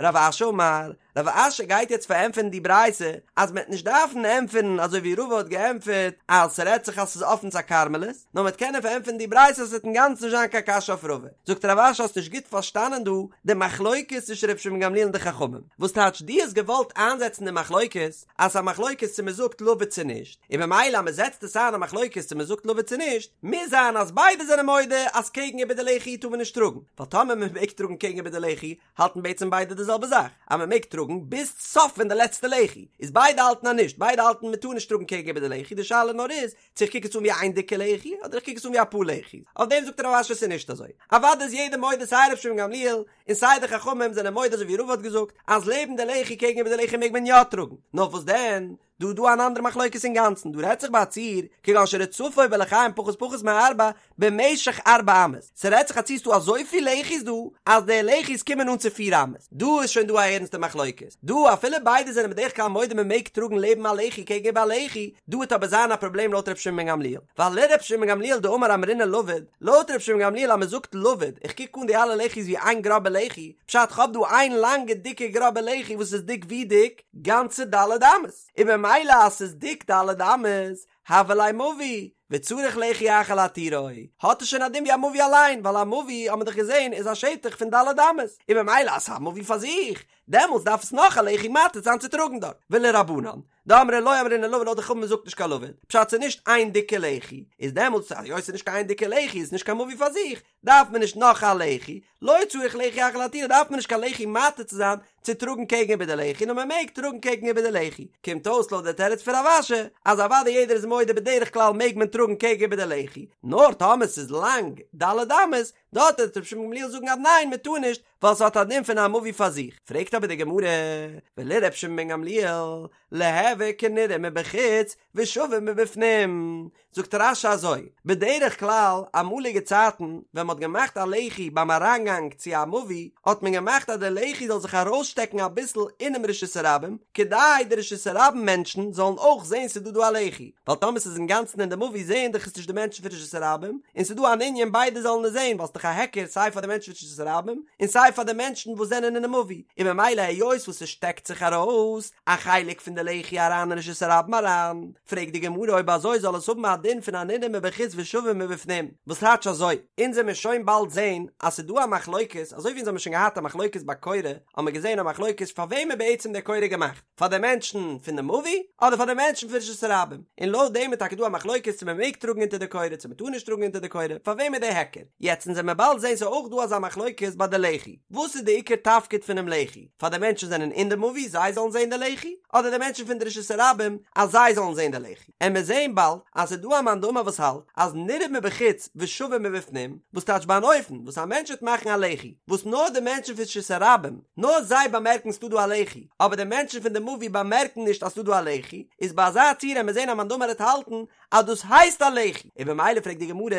רב אשי אמר, רב אשי גייט יעצט פארענטפערן די ברייתא אז מ'עט נישט דארפן ענטפערן אזוי ווי רבא האט געענטפערט אז ס'רעדט זיך אז ס'איז אפן צו א כרמלית, נאר מ'עט קענען פארענטפערן די ברייתא אז ס'וועט אינגאנצן נישט זיין קיין קשיא אויף רבא. זאגט רב אשי האסט נישט גוט פארשטאנען דא די מחלוקת צווישן רבי שמעון גמליאל און די חכמים, וואס טייטש דו האסט געוואלט איינזעצן די מחלוקת אז ס'איז א מחלוקת צו מ'זאגט לבוד צו נישט, און במילא אז מ'זעצט עס איין א מחלוקת צו מ'זאגט לבוד צו נישט, מוז זיין אז ביידע זענען מודה אז קעגן איבער די לחי טאר מען נישט טראגן, ווייל טאמער מ'מעג טראגן קעגן איבער די לחי, האלטן בעצם ביידע די זעלבע זאך, אז מ'מעג טראגן ביז סוף פון די לעצטע לחי, איז ביידע האלטן אז נישט, ביידע האלטן מ'טאר נישט טראגן קעגן איבער די לחי, די שאלה נאר איז צו איך קוק עס אן ווי איין דיקע לחי, אדער איך קוק עס אן ווי אפאר לחי'ס, אויף דעם זאגט רב אשי ס'איז נישט אזוי, אוודאי איז יעדער מודה סיי ר' שמעון גמליאל, און סיי די חכמים זענען מודה אזוי ווי רבא האט געזאגט אז לעבן די לחי קעגן איבער די לחי מעג מען יא טראגן, נאר וואס דען דא איז דא אן אנדערע מחלוקת אינגאנצן, דא רעדט זיך ביי א ציור כגון שרצפו בלחיים פחות פחות מארבע במשך ארבע אמות, ס'רעדט זיך א ציור ס'דא אזויפיל לחי'ס דא אז די לחי'ס קומען אן צו פיר אמות, דא איז שוין דא א ערנסטע מחלוקת, דא אפילו ביידע זענען בדרך כלל מודה מען מעג טראגן לעבן א לחי קעגן איבער א לחי, דא וועט אבער זיין א פראבלעם לויט ר' שמעון בן גמליאל, ווייל לר' שמעון בן גמליאל דאמר אמרינן לבוד, לויט ר' שמעון גמליאל אז מען זאגט לבוד, איך קוק אן די אלע לחי'ס ווי איין גראבע לחי, פשט כ'האב דא איין לאנגע דיקע גראבע לחי וואס איז דיק ווי דיק? גאנצע ד' אמות, און במילא אז ס'איז דיק ד' אמות, הוה ליה מבוי, וצריך לחי אחר להתירו, האט עס שוין א דין ווי א מבוי אליין, ווייל א מבוי האט מען דאך געזען איז א שטח פון ד' אמות, און במילא אז ס'איז א מבוי פאר זיך, דעמאלטס דארף עס נאך א לחי מתיר זיין צו טראגן דארט, ולרבנן, דאמרי לא אמרינן לבוד לויט די חכמים מ'זאגט נישט קיין לבוד, פשט ס'איז נישט איין דיקע לחי, איז דעמאלטס היות ס'איז נישט קיין איין דיקע לחי איז נישט קיין מבוי פאר זיך, דארף מען נישט נאך א לחי, לא צריך לחי אחר להתירו דארף מען נישט קיין לחי מתיר צו זיין צו טראגן קעגן איבער די לחי נאר מען מעג טראגן קעגן איבער די לחי, קומט אויס לויט די תירוץ פון רב אשי אז אוודאי יעדער איז מודה בדרך כלל מעג מען טראגן קעגן איבער די לחי, נאר טאמער ס'איז לאנג ד' אמות, דארט וועט רבי שמעון גמליאל זאגן אז ניין מען טאר נישט ווייל ס'האט א דין פון א מבוי פאר זיך, פרעגט אבער די גמרא, ולר' שמעון בן גמליאל, ליהוי כנראה מבחוץ ושווה מבפנים, זאגט רש"י אזוי, בדרך כלל אמאליגע צייטן ווען מ'האט געמאכט א לחי ביים אריינגאנג צו א מבוי האט מען געמאכט אז די לחי זאל זיך ארויסשטעקן אביסל אינעם רשות הרבים כדי די רשות הרבים מענטשן זאלן אויך זען ס'איז דא דא א לחי, ווייל טאמער ס'איז אינגאנצן אין די מבוי זעען דאך עס נישט די מענטשן פון רשות הרבים, און ס'איז דא אן ענין ביידע זאלן עס זען ווייל ס'איז דאך א היכר סיי פאר די מענטשן פון רשות הרבים און סיי פאר די מענטשן וואס זענען אינעם מבוי, און ממילא היות וואס ס'שטעקט זיך ארויס א חלק פון די לחי אריין אין רשות הרבים אריין, פרעגט די גמרא אויב אזוי זאל עס האבן א דין פון א נראה מבחוץ ושווה מבפנים, וואס טייטש אזוי? אונז וועמיר שוין באלד זען אז ס'איז דא א מחלוקת, אזוי ווי אונז האמיר שוין געהאט א מחלוקת ביי קורה, האמיר געזען א מחלוקת פאר וועם איז בעצם דער קורה געמאכט, פאר די מענטשן פון די מבוי אדער פאר די מענטשן פון רשות הרבים, און לויט דעם איז טאקע דא א מחלוקת צו מען מעג טראגן אונטער די קורה צו מען טאר נישט טראגן אונטער די קורה, פאר וועם איז די היכר? יעצט אונז וועמיר באלד זען ס'איז אויך דא אזא מחלוקת ביי די לחי, וואס איז די עיקר תפקיד פונעם לחי? פאר די מענטשן זענען אין די מבוי זיי זאלן זען די לחי, אדער די מענטשן פון די רשות הרבים אז זיי זאלן זען די לחי? עמיר זען באלד אז ס'איז דא א מאן דאמר וואס האלט אז נראה מבחוץ ושווה מבפנים, וואס טייטש ביי אן אופן וואס א מענטש וועט מאכן א לחי וואס נאר די מענטשן פון רשות הרבים נאר זיי באמערקן ס'דא דא א לחי, אבער די מענטשן פון די מבוי באמערקן נישט אז ס'דא דא א לחי, איז ביי אזא ציור עמיר זען א מאן דאמר וועט האלטן אז דאס הייסט א לחי, און במילא פרעגט די גמרא,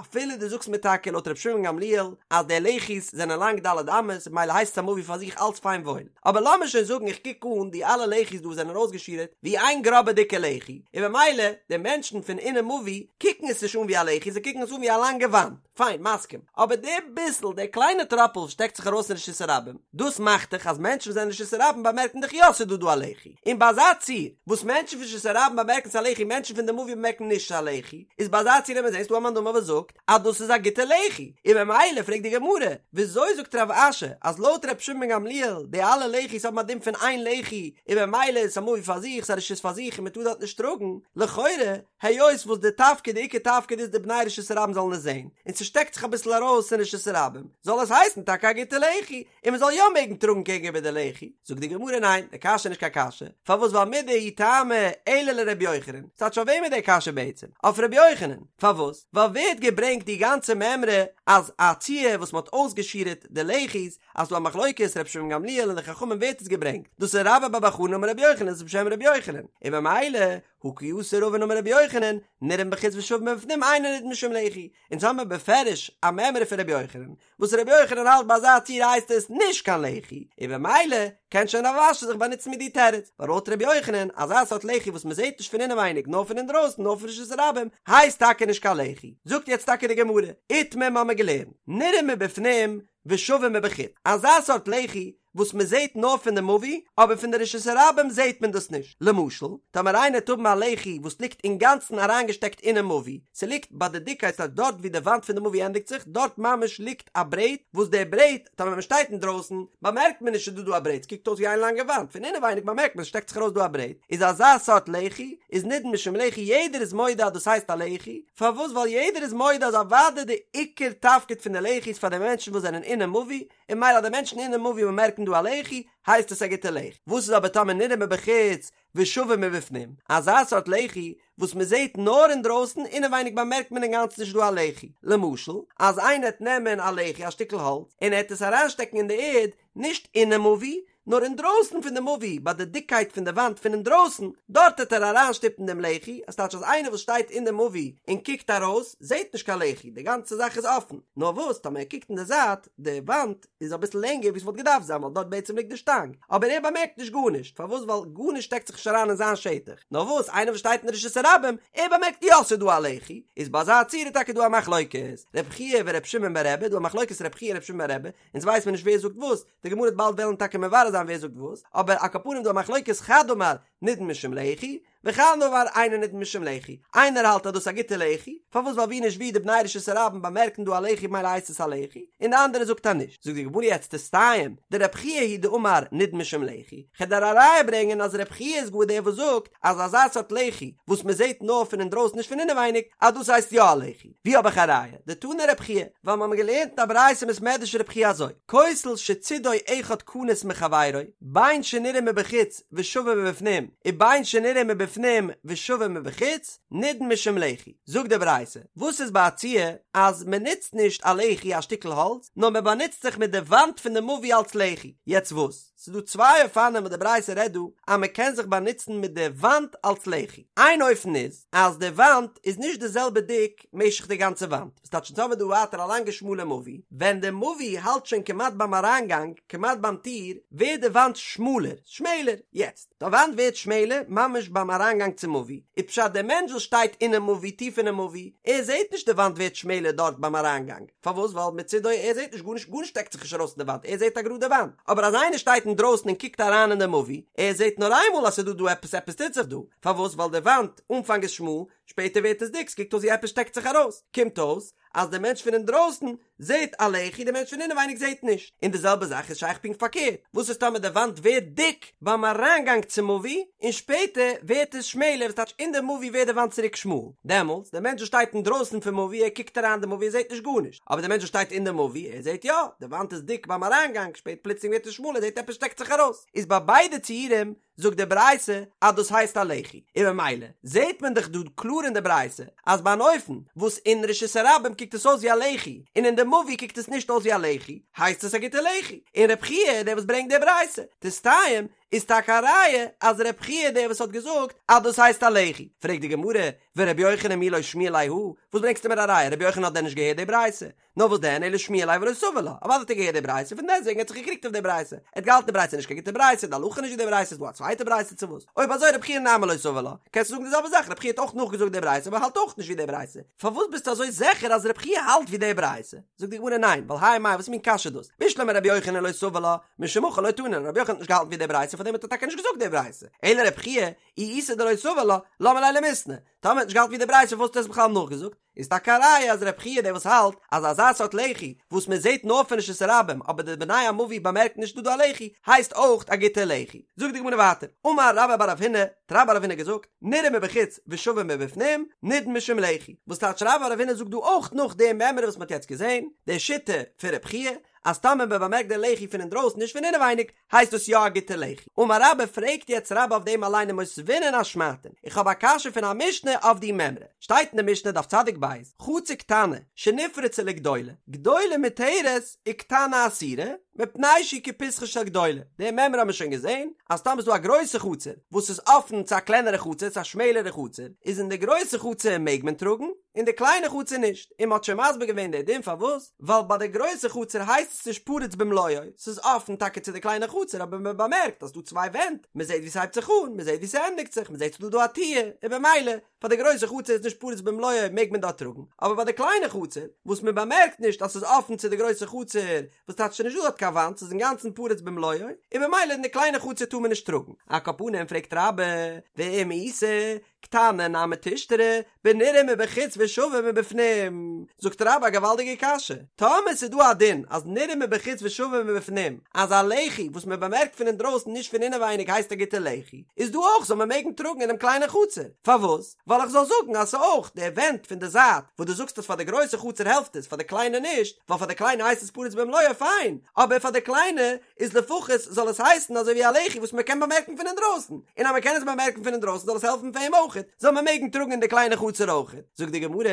אפילו דו זאגסט מיר טאקע לויט ר' שמעון. שמעון גמליאל אז די לחי'ס זענען לאנג ד' אמות ממילא הייסט עס א מבוי פאר זיך אלץ פיין וואויל, אבער לאמיר שוין זאגן איך קוק אן די אלע לחי'ס דא וואס זענען אויסגעשירעט ווי איין גראבע דיקע לחי, און ממילא די מענטשן פון אינעם מבוי קוקן עס נישט אן ווי א לחי זיי קוקן עס אן ווי א לאנגע וואנט, פיין מסכים, אבער די ביסל די קליינע טראפל וואס שטעקט זיך ארויס אין רשות הרבים דאס מאכט דאך אז מענטשן וואס זענען אין רשות הרבים באמערקן דאך יא ס'איז דא דא א לחי, און ביי אזא ציור וואס מענטשן פון רשות הרבים באמערקן ס'איז א לחי מענטשן פון די מבוי באמערקן נישט ס'איז א לחי, איז ביי אזא ציור וועט מען זען ס'דא א מאן דאמר וואס זאגט אז דאס איז א גוטע לחי, און ממילא פרעגט די גמרא, וויאזוי זאגט רב אשי אז לויט ר' שמעון בן גמליאל די אלע לחי'ס האבן א דין פון איין לחי, און ממילא איז עס א מבוי פאר זיך, ס'איז א רשות פאר זיך און מ'טאר דארט נישט טראגן, לכאורה, היות וואס די תפקיד די עיקר תפקיד איז די בני רשות הרבים זאלן עס זען, און ס'שטעקט זיך אביסל ארויס אין רשות הרבים, זאל עס הייסן טאקע א גוטע לחי, און מ'זאל יא מעגן טראגן קעגן איבער די לחי, זאגט די גמרא ניין, די קשיא איז נישט קיין קשיא, פארוואס ווייל מידי הוא טעמא אלא לר' יוחנן, ס'טייטש אויף וועם איז די קשיא בעצם? אויף ר' יוחנן, פארוואס? ווייל ווער האט געברענגט די גאנצע מימרא אז א ציור וואס מ'האט אויסגעשירעט די לחי'ס אז ס'דא א מחלוקת ר' שמעון גמליאל און די חכמים ווער האט עס געברענגט? דאס איז רבה בר בר חנה אמר ר' יוחנן איז בשם ר' יוחנן, און במילא הא כי אתא רבין אמר ר' יוחנן נראה מבחוץ ושווה מבפנים אינו נידון משום לחי, אונז האמיר בפירוש א מימרא פון ר' יוחנן וואס רבי יוחנן האלט ביי אזא ציור הייסט עס נישט קיין לחי, און במילא קען שוין רב אשי זיך באנוצן מיט די תירוץ, ווייל לויט רבי יוחנן אזא סארט לחי וואס מען זעט נישט פון אינעווייניג נאר פון אינדרויסן נאר פון רשות הרבים הייסט טאקע נישט קיין לחי, זאגט יעצט טאקע די גמרא, איתמר מ'האמיר געלערנט, נראה מבפנים ושווה מבחוץ, אזא סארט לחי וואס מען זעט נאר פון די מבוי, אבער פון די רשות הרבים זעט מען דאס נישט. למשל, טאמער איינער וועט האבן א לחי וואס ליגט אינגאנצן אריינגעשטעקט אינעם מבוי, ס'ליגט ביי די דיקקייט ס'הייסט דארט ווי די וואנט פון די מבוי ענדיגט זיך, דארט ממש ליגט א ברעט, וואס דער ברעט, טאמער מען שטייט אינדרויסן, באמערקט מען נישט ס'איז דא דא א ברעט, ס'קוקט אויס ווי איין לאנגע וואנט, פון אינעווייניג באמערקט מען ס'שטעקט זיך ארויס דא א ברעט, איז אזא סארט לחי איז נידון משום לחי יעדער איז מודה אז דאס הייסט א לחי, פארוואס ווייל יעדער איז מודה אז אוודאי די עיקר תפקיד פון די לחי איז פאר די מענטשן וואס זענען אינעם מבוי, און ממילא אז די מענטשן אינעם מבוי באמערקן דא א לחי, הייסט עס א גוטע לחי. וואס איז אבער טאמער נראה מבחוץ ושווה מבפנים? אזא סארט לחי וואס מען זעט נאר אינדרויסן, אינעווייניג באמערקט מען אינגאנצן נישט דא א לחי. למשל, אז איינער העט נעמען א לחי, א שטיקל האלץ, און ער העט עס אריינשטעקן אין די ערד, נישט אינעם מבוי, נאר אינדרויסן פון די מבוי, ביי די דיקקייט פון די וואנט פון אינדרויסן, דארט העט ער אריינשטופן דעם לחי, עס טייטש אז איינער וואס שטייט אין די מבוי און קוקט ארויס, זעט נישט קיין לחי, די גאנצע זאך איז אפן. נאר וואס, טאמער ער קוקט אין די זייט, די וואנט איז אביסל לענגער ווי ס'וואלט געדארפט זיין ווייל דארט בעצם ליגט די שטאנג, אבער ער באמערקט נישט גארנישט, פארוואס ווייל גארנישט שטעקט זיך נישט אריין אין זיין שטח, נאר וואס איינער וואס שטייט אין רשות הרבים, ער באמערקט יא ס'איז דא א לחי, איז ביי אזא ציור איז טאקע דא א מחלוקת, רב חייא ור' שמעון ברבי, דא א מחלוקת רב חייא און ר' שמעון ברבי, אונז ווייסט מען נישט ווער זאגט וואס, די גמרא וועט באלד וועלן טאקע מברר זיין ווער זאגט וואס, אבער על כל פנים דא א מחלוקת חד אמר נידון משום לחי, וחד אמר אינו נידון משום לחי, איינער האלט אז דאס איז א גוטע לחי, פארוואס ווייל ווי נישט ווי די בני רשות הרבים באמערקן דא א לחי ממילא הייסט עס א לחי, און די אנדערע זאגט אז נישט, זאגט די גמרא יעצט תסתיים, דרב חייא היא דאמר נידון משום לחי, כ'על דיר א ראיה ברענגען אז רב חייא איז גאר דער וואס זאגט אז אזא סארט לחי וואס מען זעט נאר פון אינדרויסן נישט פון אינעווייניג אז דאס הייסט יא א לחי, ווי האב איך א ראיה? דתני רב חייא, ווייל מ'האמיר געלערנט אין א ברייתא אין בית מדרש רב חייא אזוי, כותל שצידו אחד כנוס מחבירו, בין שנראה מבחוץ ושווה מבפנים, ובין שנראה מבפנים ושווה מבחוץ, נידון משום לחי. זאגט די ברייתא, וואס איז ביי א ציור אז מ'נוצט נישט א לחי א שטיקל האלץ, נאר מ'באנוצט זיך מיט די וואנט פון די מבוי אלס לחי, יעצט וואס? ס'איז דא צוויי אופנים וואס די ברייתא רעדט דא אז מ'קען זיך באנוצן מיט די וואנט אלס לחי. איין אופן איז אז די וואנט איז נישט די זעלבע דיק משך די גאנצע וואנט, וואס טייטש אונז האבן דא ווייטער א לאנגע שמאלע מבוי, ווען די מבוי האלט שוין כמעט ביים אריינגאנג, כמעט ביים טיר, ווערט די וואנט שמאלער, שמעלער, יעצט, די וואנט ווערט שמעלער ממש ביים אריינגאנג צום מבוי, איז פשט דער מענטש וואס שטייט אינעם מבוי, טיף אינעם מבוי, ער זעט נישט די וואנט ווערט שמעלער דארט ביים אריינגאנג, פארוואס? ווייל מצידו ער זעט נישט גארנישט, גארנישט שטעקט זיך נישט ארויס פון די וואנט, ער זעט א גראדע וואנט, אבער אז איינער שטייט אינדרויסן און קוקט אריין אין די מבוי, ער זעט נאר איינמאל אז ס'איז דא דא עפעס, עפעס טוט זיך דא, פארוואס? ווייל די וואנט אנפאנג איז שמאל, שפעטער ווערט עס דיק, ס'קוקט אויס ווי עפעס שטעקט זיך ארויס, קומט אויס אז דער מענטש פון אינדרויסן זעט א לחי, דער מענטש פון אינעווייניג זעט נישט, און די זעלבע זאך איז שייך פונקט פארקערט, וואס איז טאמער די וואנט ווערט דיק ביים אריינגאנג צום מבוי, און שפעטער ווערט עס שמעלער, וואס טייטש אין די מבוי ווערט די וואנט צוריק שמאל, דעמאלטס דער מענטש וואס שטייט אינדרויסן פון מבוי ער קוקט אריין די מבוי ער זעט נישט גארנישט, אבער דער מענטש וואס שטייט אין די מבוי ער זעט יא, די וואנט איז דיק ביים אריינגאנג, שפעטער פלוצלינג ווערט עס שמאל ער זעט עפעס שטעקט זיך ארויס, איז ביי ביידע ציורים זאגט די ברייתא אז דאס הייסט א לחי, און ממילא זעט מען דאך דא קלאר אין די ברייתא אז ביי אן אופן וואס אין רשות הרבים קוקט עס אויס ווי א לחי און אין די מבוי קוקט עס נישט אויס ווי א לחי הייסט עס א גוטע לחי, און רב חייא איז דער וואס ברענגט די ברייתא, תסתיים. איז טאקע א ראיה אז רב חייא דער וואס האט געזאגט אז דאס הייסט א לחי. פרעגט די גמרא, ורבי יוחנן מי לא שמיע ליה הא, וואס ברענגסטו מיר א ראיה, רבי יוחנן האט דען נישט געהערט די ברייתא? נאר וואס דען, אלא שמיע ליה ולא סבר לה, אוודאי האט ער געהערט די ברייתא, פון דעסטוועגן האט זיך געקריגט אויף די ברייתא, ער האט געהאלטן די ברייתא איז נישט קיין גוטע ברייתא, די הלכה איז נישט ווי די ברייתא, איז דא א צווייטע ברייתא צו וואס? אויב אזוי רב חייא נמי לא סבר לה, קענסטו זאגן די זעלבע זאך, רב חייא האט אויך נאכגעזאגט די ברייתא אבער האלט אויך נישט ווי די ברייתא, פארוואס ביסטו אזוי זיכער אז רב חייא האלט ווי די ברייתא? זאגט די גמרא ניין, ווייל האי מאי וואס מין קשיא איז דאס? בשלמא רבי יוחנן לא סבר לה, משום הכי לא תני לה, רבי יוחנן האט נישט געהאלטן ווי די ברייתא פארדעם האט ער טאקע נישט געזאגט די ברייתא, אלא רב חייא, אי איתא דלא סבר לה, למה ליה למיתנא? טאמער האט נישט געהאלטן ווי די ברייתא פארוואס האט ער עס בכלל נאכגעזאגט? איז טאקע א ראיה אז רב חייא דער וואס האלט אז אזא סארט לחי וואס מען זעט נאר פון רשות הרבים אבער די בני המבוי באמערקן נישט דא דא א לחי הייסט אויך א גוטע לחי. זאגט די גמרא ווייטער, אמר רבה בר רב הונא, האט רבה בר רב הונא געזאגט, נראה מבחוץ ושווה מבפנים, נידון משום לחי. וואס טייטש רבה בר רב הונא זאגט דא אויך נאך די מימרא וואס מען האט יעצט געזען, די שיטה פון רב חייא, אז טאמער מען באמערקט די לחי פון אינדרויסן נישט פון אינעווייניג, הייסט דאס יא א גוטע לחי. אמר רבה פרעגט יעצט רבה אויף דעם אליין ומותבינן אשמעתין, איך האב א קשיא פון א משנה אויף די מימרא. שטייט אין די משנה דף צדיק בית, חצר קטנה שנפרצה לגדולה, גדולה מותרת וקטנה אסורה, מפני שהיא כפתחה של גדולה. די מימרא האבן מיר שוין געזען, אז טאמער איז דא א גרויסע חצר וואס איז אפן צו א קלענערע חצר, צו א שמעלערע חצר, איז אין די גרויסע חצר מעג מען טראגן, אין די קליינע חצר נישט, און מ'האט שוין מסביר געווען די דין פארוואס, ווייל ביי די גרויסע חצר הייסט עס נישט פרוץ במלואו, ס'איז אפן טאקע צו די קליינע חצר אבער מ'באמערקט אז ס'דא צוויי ווענט, מ'זעט ווי ס'הייבט זיך אן, מ'זעט ווי ס'ענדיגט זיך, מ'זעט ס'דא דא א טיר, און במילא פאר די גרויסע חצר איז נישט פרוץ במלואו מעג מען דארט טראגן, אבער ביי די קליינע חצר וואס מ'באמערקט נישט אז ס'איז אפן צו די גרויסע חצר, וואס טייטש ס'איז נישט דא דארט קיין וואנט ס'איז אינגאנצן פרוץ במלואו, און במילא אין די קליינע חצר טאר מען נישט טראגן. על כל פנים פרעגט רבה, ואם איתא, קטנה נמי תישתרי, בנראה מבחוץ ושווה מבפנים. זאגט רבה א געוואלדיגע קשיא, טאמער ס'איז דא א דין אז נראה מבחוץ ושווה מבפנים, אז א לחי וואס מען באמערקט פון אינדרויסן נישט פון אינעווייניג הייסט א גוטע לחי, איז דא אויך זאל מען מעגן טראגן אינעם קליינע חצר. פארוואס? ווייל איך זאל זאגן אז ס'איז אויך די ווענט פון די זייט וואס דו זאגסט אז פאר די גרויסע חצר העלפט עס פאר די קליינע נישט, ווייל פאר די קליינע הייסט עס פרוץ במלואו פיין, אבער פאר די קליינע איז לפחות זאל עס הייסן אזוי ווי א לחי וואס מען קען באמערקן פון אינדרויסן, און אז מען קען עס באמערקן פון אינדרויסן זאל עס העלפן פאר אים אויכעט, זאל מען מעגן טראגן אין די קליינע חצר אויכעט. זאגט די גמרא,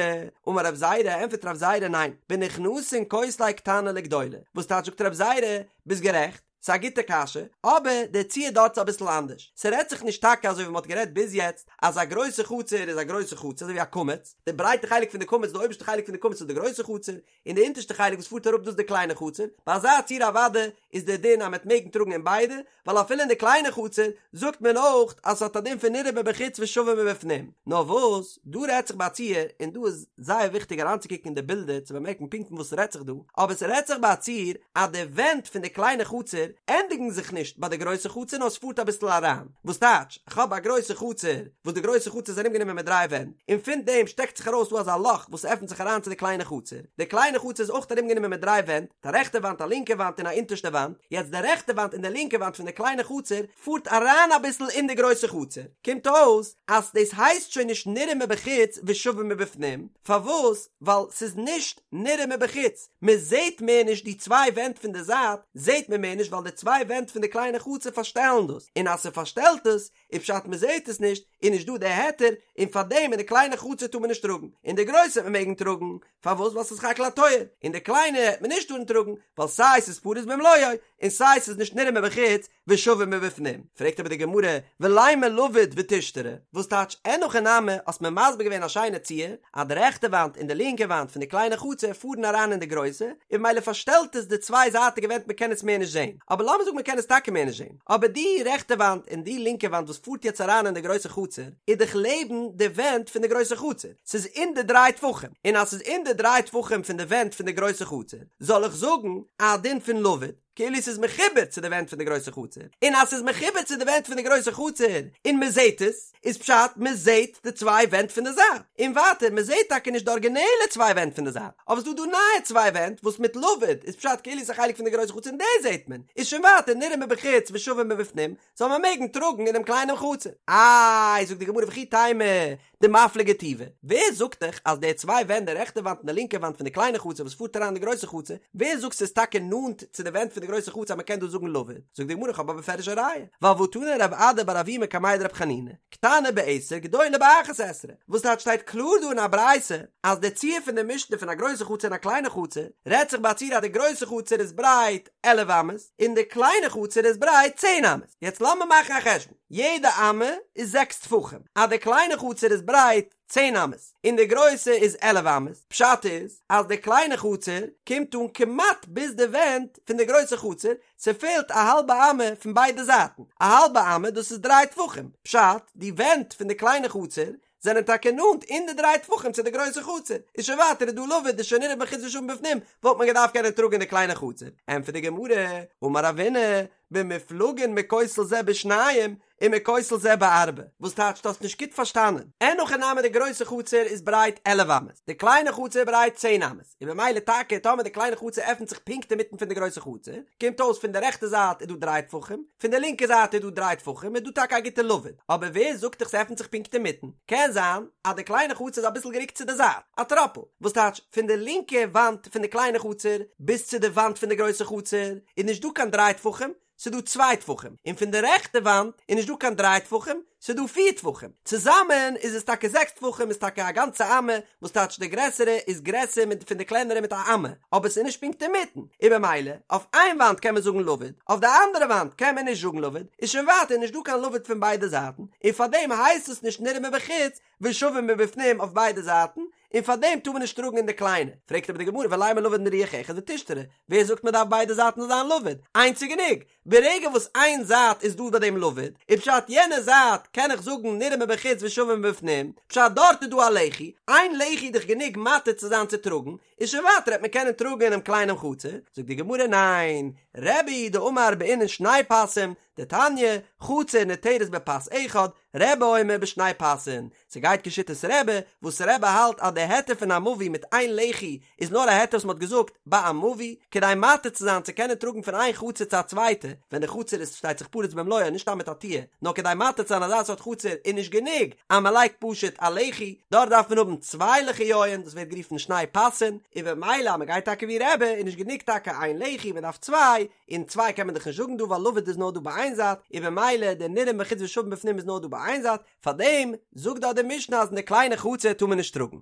אמר רב זירא, ענטפערט רב זירא, ניין, בנכנסין כותלי קטנה לגדולה, וואס טייטש זאגט רב זירא, ביסט גערעכט, ס'איז א גוטע קשיא, אבער די ציור דארט איז אביסל אנדערש, ס'רעדט זיך נישט טאקע אזוי ווי מ'האט גערעדט ביז יעצט, אז א גרויסע חצר איז א גרויסע חצר אזוי ווי א קמץ, די ברייטע חלק פון די קמץ, די אויבערשטע חלק פון די קמץ איז די גרויסע חצר, און די אונטערשטע חלק וואס פארט אראפ דאס איז די קליינע חצר, ביי אזא ציור אוודאי איז דער דין אז מ'וועט מעגן טראגן אין ביידע, ווייל אפילו אין די קליינע חצר זאגט מען אויך אז ס'האט א דין פון נראה מבחוץ ושווה מבפנים, נאר וואס דא רעדט זיך ביי א ציור, און דא איז זייער וויכטיג אריינצוקוקן אין די בילדער צו באמערקן פונקט פון וואס ס'רעדט זיך דא, אבער ס'רעדט זיך ביי א ציור אז די ווענט פון די קליינע חצר ענדיגן זיך נישט ביי די גרויסע חצר נאר ס'פארט אביסל אריין, וואס טייטש, כ'האב א גרויסע חצר וואס די גרויסע חצר איז ארומגענומען מיט דריי ווענט, און פון דעם שטעקט זיך ארויס דא אזא לאך וואס עפנט זיך אריין צו די קליינע חצר, די קליינע חצר איז אויך ארומגענומען מיט דריי ווענט, א רעכטע וואנט א לינקע וואנט און א אונטערשטע וואנט, יעצט די רעכטע וואנט און די לינקע וואנט פון די קליינע חצר פארט אריין אביסל אין די גרויסע חצר, קומט אויס אז דאס הייסט שוין נישט נראה מבחוץ ושווה מבפנים, פארוואס? ווייל ס'איז נישט נראה מבחוץ, מען זעט מער נישט די צוויי ווענט פון די זייט, זעט מען מער נישט ווייל די צוויי ווענט פון די קליינע חצר פארשטעלן דאס, און אז ס'פארשטעלט עס, איז פשט מען זעט עס נישט, איז נישט דא די היתר, און פארדעם אין די קליינע חצר טאר מען נישט טראגן, אין די גרויסע וועט מען מעגן טראגן, פארוואס? ווייל ס'איז סך הכל א טויער, אין די קליינע העט מען נישט טארן טראגן, ווייל סיי ס'איז פרוץ במלואו, און סיי ס'איז נישט נראה מבחוץ, ושווה מבפנים. פרעגט אבער די גמרא, ולימא לבוד ותשתרי, וואס טייטש אין הכי נמי, האסט מיר מסביר געווען א שיינע ציור, אז די רעכטע וואנט און די לינקע וואנט פון די קליינע חצר פארן אריין אין די גרויסע, און במילא פארשטעלט עס די צוויי זייטיגע ווענט מען קען עס מער נישט זען, אבער לאמיר זאגן מען קען עס טאקע מער נישט זען, אבער די רעכטע וואנט און די לינקע וואנט וואס פארט יעצט אריין אין די גרויסע חצר, איז דאך לעבן די ווענט פון די גרויסע חצר, ס'איז אין די דריי טפחים, און אז ס'איז אין די דריי טפחים פון די ווענט פון די גרויסע חצר, זאל איך זאגן א דין פון לבוד, כאילו ס'איז מחובר צו די ווענט פון די גרויסע חצר, און אז ס'איז מחובר צו די ווענט פון די גרויסע חצר און מ'זעט עס, איז פשט מ'זעט די צוויי ווענט פון די זייט, און ווייטער מ'זעט טאקע נישט די ארגינעלע צוויי ווענט פון די זייט, אבער ס'דא דא נייע צוויי ווענט וואס מיט לבוד איז פשט כאילו ס'איז א חלק פון די גרויסע חצר און די זעט מען, איז שוין ווייטער נראה מבחוץ ושווה מבפנים, זאל מען מעגן טראגן אינעם קליינעם חצר. איי, זאגט די גמרא וכי תימא דמפלגי טובא, ווער זאגט דיך אז די צוויי ווענט די רעכטע וואנט און די לינקע וואנט פון די קליינע חצר וואס פארט אריין אין די גרויסע חצר, ווער זאגט ס'איז טאקע נאנט צו די ווענט פון די. גרויסע חצר אז מען קען דא זאגן לבוד, זאגט די גמרא איך האב א בפירוש'ע ראיה, ווייל והתני רב אדא בר אבימי קמיה דרב חנינא, קטנה בעשר גדולה באחת עשרה, וואס טייטש שטייט קלאר דא אין א ברייתא אז די ציור פון די משנה פון א גרויסע חצר און א קליינע חצר רעדט זיך ביי א ציור אז די גרויסע חצר איז ברייט עלף אמות און די קליינע חצר איז ברייט צען אמות, יעצט לאמיר מאכן א חשבון, יעדע אמה איז זעקס טפחים, אז די קליינע חצר איז ברייט צען אמות און די גרויסע איז עלף אמות, פשט איז אז די קליינע חצר קומט אן כמעט ביז די ווענט פון די גרויסע חצר, ס'פעלט א האלבע אמה פון ביידע זייטן, א האלבע אמה דאס איז דריי טפחים, פשט, די ווענט פון די קליינע חצר זענען טאקע נאנט אין די דריי טפחים צו די גרויסע חצר, איז שוין ווייטער איז דא לבוד איז שוין נראה מבחוץ ושווה מבפנים, וואלט מען געדארפט קענען טראגן אין די קליינע חצר, ענטפערט די גמרא, אמר רבינא, במופלגין מכותל זה בשניים ומכותל זה בארבעה, וואס טייטש דו האסט נישט גוט פארשטאנען, אין הכי נמי די גרויסע חצר איז ברייט עלף אמות, די קליינע חצר איז ברייט צען אמות, און במילא טאקע טאמער די קליינע חצר עפנט זיך פונקט אינמיטן פון די גרויסע חצר, קומט אויס פון די רעכטע זייט איז דא דריי טפחים, פון די לינקע זייט איז דא דריי טפחים, איז דא טאקע א גוטע לבוד, אבער ווער זאגט דיך ס'עפנט זיך פונקט אינמיטן, קען זיין אז די קליינע חצר איז אביסל גערוקט צו די זייט, א טראפל, וואס טייטש פון די לינקע וואנט פון די קליינע חצר ביז צו די וואנט פון די גרויסע חצר איז נישט דא קיין דריי טפחים, ס'איז דא צוויי טפחים, און פון די רעכטע וואנט איז נישט דא קיין דריי טפחים, ס'איז דא פיר טפחים, צוזאמען איז עס טאקע זעקס טפחים, איז טאקע א גאנצע אמה, וואס טייטש די גרעסערע איז גרעסער מיט פון די קלענערע מיט א אמה, אבער ס'איז נישט פונקט אינמיטן, און במילא, אויף איין וואנט קען מען זאגן לבוד, אויף די אנדערע וואנט קען מען נישט זאגן לבוד, איז שוין ווייטער נישט דא קיין לבוד פון ביידע זייטן, און פארדעם הייסט עס נישט נראה מבחוץ ושווה מבפנים אויף ביידע זייטן, און פאר דעם טאר מען נישט טראגן אין די קליינע, פרעגט אבער די גמרא ולימא לבוד מרוח אחד ותשתרי, ווער זאגט מען דארף ביידע זייטן זאל זיין לבוד, איינס איז גענוג, ברגע וואס איין זייט איז דא ביי דעם לבוד, איז פשט יענע זייט קען איך זאגן נראה מבחוץ ושווה מבפנים, פשט דארט איז דא א לחי, איין לחי איז דאך גענוג מתיר צו זיין צו טראגן, איז שוין ווייטער העט מען קענען טראגן אינעם קליינעם חצר, זאגט די גמרא ניין, רבי היא דאמר בעינן שני פסים, דתניא, חצר ניתרת בפס אחד, רבי אומר בשני פסין, ס'גייט כשיטת רבי, וואס רבי האלט אז די היתר פון א מבוי מיט איין לחי איז נאר א היתר וואס מ'האט געזאגט ביי א מבוי, כדי מתיר צו זיין צו קענען טראגן פון איין חצר צו א צווייטע, ווען די חצר איז שטייט זיך פרוץ במלואה נישט סתם מיט א טיר, נאר כדי מתיר צו זיין אזא סארט חצר איז נישט גענוג אז מ'לייגט פשוט א לחי, דארט דארף מען האבן צוויי לחיין, דאס ווערט גערופן שני פסין, און במילא אז מ'גייט טאקע ווי רבי איז נישט גענוג טאקע איין לחי מ'דארף צוויי, און צוויי קען מען דאך נישט זאגן דא ווייל לבוד איז נאר דא ביי איין זייט, און במילא די נראה מבחוץ ושווה מבפנים איז נאר דא ביי איין זייט, פארדעם זאגט דארט די משנה אז אין די קליינע חצר טאר מען נישט טראגן.